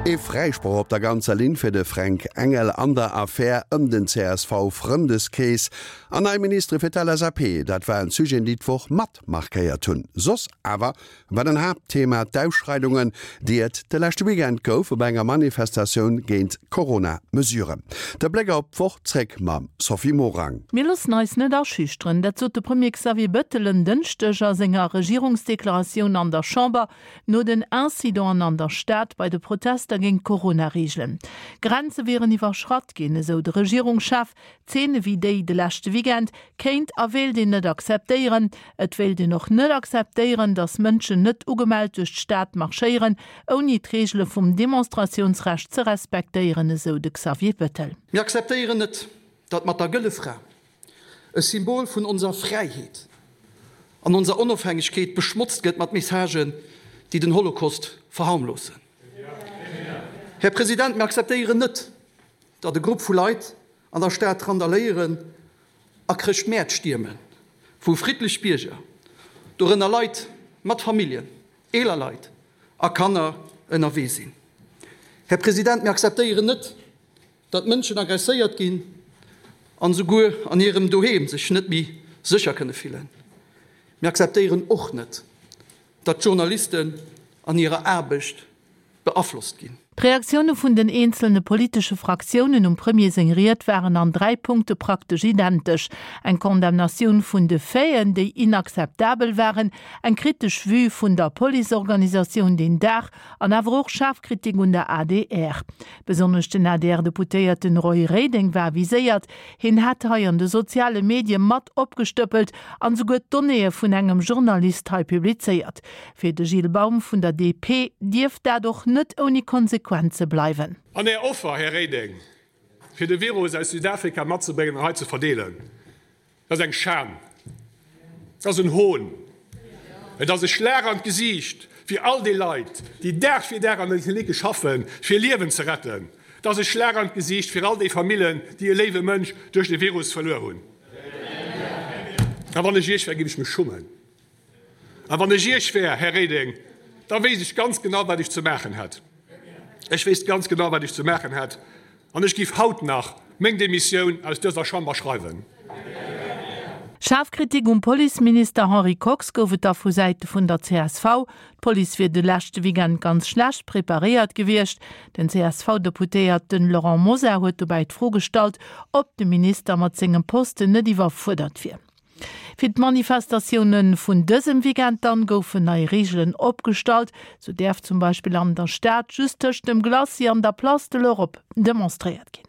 Ee Fräisproch op der ganzer Linn fir de Fränk Engel an der Affär ëm den CSV-Frëndeskrees an nei Ministere fir d'LSAP, dat waren d'Sujeten, déi d'Woch mat markéiert hunn. Soss awer war den Haaptthema d'Ausschreidungen, déi et de leschte Weekend gouf op enger Manifestatioun géint d'Corona-Mesuren. De Bléck op d'Woch zréck mam Sophie Morang. Mir loossen eis net aschüchteren, dat sot de Premier Xavier Bettel en Dënschdeg a senger Regierungsdeklaratioun an der Chamber no den Incidenten an der Stad bei de Protester géint d'Corona-Reegelen. Grenze wieren iwwerschratt ginn, esou de Regierungschef. Zeene wéi déi de leschte Weekend kéint a wéilt een net akzeptéieren. Et wéilt een och net akzeptéieren, datt Mënschen net ugemellt duerch d'Stad marschéieren, ouni d'Reegele vum Demonstratiounsrecht ze respektéieren, esou de Xavier Bettel. Mir akzeptéieren net, datt mat der Gëlle Fra e Symbol vun onser Fräiheet an onser Onofhängegkeet beschmotzt gëtt mat Messagen, déi den Holocaust verharmlosen. Här President, mir akzeptéieren net, datt e Grupp vu Leit an der Stad randaléieren a Chrëschtmäert stiermen, wou friddlech Bierger, dorënner Leit mat Familljen, eeler Leit a Kanner, ënnerwee sinn. Här President, mir akzeptéieren net, datt Mënschen agresséiert ginn an esouguer an hirem Doheem sech net méi sécher kënne fillen. Mir akzeptéieren och net, datt d'Journalisten an hirer Aarbecht beaflosst ginn. D'Reaktioune vun den eenzelne politesche Fraktiounen um Premier seng Ried waren an 3 Punkte praktesch identesch, eng Condamnatioun vun de Faiten, déi inakzeptabel waren, eng kritesch Vue vun der Policeorganisatioun deen Dag an awer och schaarf Kritik un der adr. Besonnesch den ADR-Deputéierten Roy Reding war viséiert. Hien hätt hei an de soziale Medie mat opgestëppelt an esouguer d'Donnéeë vun engem Journalist hei publizéiert. Fir de Gilles Baum vun der DP dierft dat och net ouni Konsequenze bleiwen. An Är Offer, Här Reding, fir de Virus aus Südafrika matzebréngen an hei ze verdeelen, dat ass eng Schan, dat ass en Hohn, et ass e Schlag an d'Gesiicht fir all déi Leit, déi Dag fir Dag an den Klinicke schaffen, fir Liewen ze retten. Et ass e Schlag an d'Gesiicht fir all déi Famillen, déi e léiwe Mënsch duerch de Virus verluer hunn. A wann ech Iech wär, géif ech mech schummen. A wann ech Iech wär, Här Reding, da wéisst ech ganz genau, wat ech ze maachen hätt. Ech wéisst ganz genau, wat ech ze maachen hätt, an ech giff haut nach meng Demissioun aus dëser Chamber schreiwen. Schaarf Kritik um Policeminister Henri Kox gouf et da vu Säite vun der csv. D'Police wier de leschte Weekend ganz schlecht preparéiert gewiescht. Den CSV-Deputéierten Laurent Mosar huet dobäi d'Fro gestallt, ob de Minister mat sengem Posten net iwwerfuerdert wier. Fir d'Manifestatioune vun dësem Weekend dann goufen nei Reegelen opgestallt. Sou däerf zum Beispill an der Stad just tëscht dem Glacis an der Place de l'Europe demonstréiert ginn.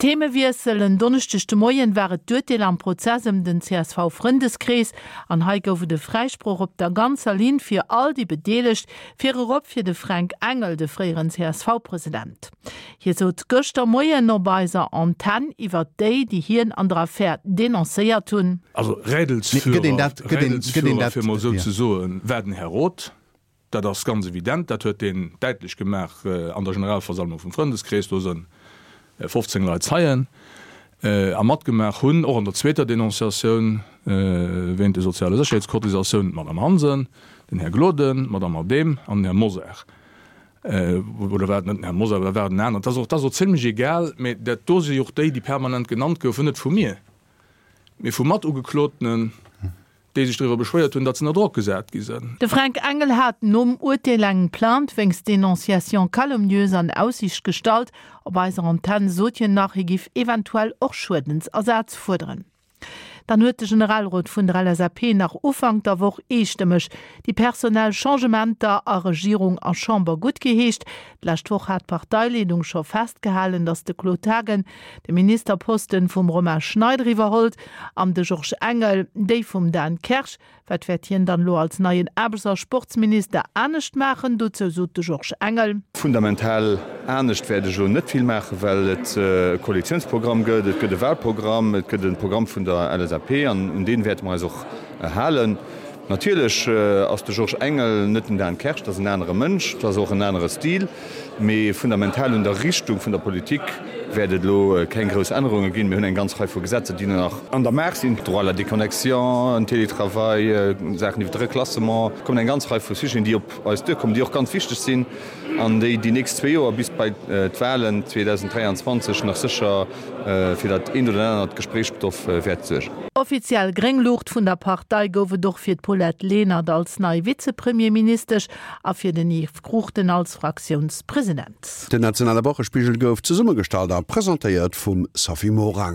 Themewiessel, En Donneschdeg de Moien war et d'Urteel am Prozess ëm den CSV-Frëndeskrees. An hei gouf et e Fräisproch op der ganzer Linn fir all déi Bedeelegt, virerop fir de Fränk Engel, de fréieren CSV-President. Hie sot gëschter Moien op eiser Antenn iwwert déi, déi hien an der Affär denoncéiert hunn. Also Rädelsführer, Rädelsführer, fir emol esou ze soen, war den Här Roth. Dat ass ganz evident. Dat huet deen däitlech gemaach an der Generalversammlung vum Frëndeskrees. Do sënn 15 Leit Zeien a matgemaach hunn, och an der zweeter Denonciatioun wéint de soziale Sécherheetscotisatiounen, d'Madame Hansen, den Här Gloden, d'Madame Adehm an den Här Mosar. Oder war et net den Här Mosar, oder war et en aneren? Dat ass och zimlech egal, mä dat do si och déi, déi permanent genannt goufen, net vu mir, mee vu Matugeklotenen, déi sech driwwer beschwéiert hunn, datt se ënner Drock gesat gi sënn. De Fränk Engel hat nom Urteel eng Plainte wéinst Dénonciation calomnieuse an Aussiicht gestallt. Op eiser Antenn sot hien nach, hie giff eventuell och Schuedensersaz fuerderen. Dann huet de Generalrot vun der LSAP nach Ufank der Woch eestëmmeg déi personell Changementer a Regierung a Chamber guttgeheescht. D'lescht Woch hat d'Parteileedung scho festgehalen, datt de Claude Haagen de Ministerposten vum Romain Schneider iwwerholt an de Georges Engel déi vum Dan Kersch. Wat wäert hien dann elo als neien Aarbechts a Sportsminister anescht maachen? Dozou sot de Georges Engel. Fundamental anescht wäert ech elo net vill maachen, well et e Koalitiounsprogramm gëtt, et gëtt e Wahlprogramm, et gëtt e Programm vun der LSAP an un dee wäerte mer eis och halen. Natierlech ass de Georges Engel net den Dan Kersch, dat ass en anere Mënsch, dat ass och en anere Stil, mee fundamental un der Richtung vun der Politik. Wäert et elo keng grouss Ännerunge ginn. Mir hunn eng ganz Rei vu Gesetzer, déi nach an der Maach sinn, Droit à la déconnexion, en Télétravail, Saachen iwwer de Reklassement. Et kommen eng ganz Rei vu Sujeten, déi op eis duerkommen, déi och ganz wichteg sinn an déi déi nächst zwee Joer bis bei d'Wahlen 2023 nach sécher fir dat eent oder anert Gespréichsstoff wäert suergen. Offiziell gréng Luucht vun der Partei gouf et och fir d'Paulette Lenert als nei Vizepremierministesch a fir den Yves Cruchten als Fraktiounspresident. Den nationale Wochespigel gouf zesummegestallt a presentéiert vum Sophie Morang.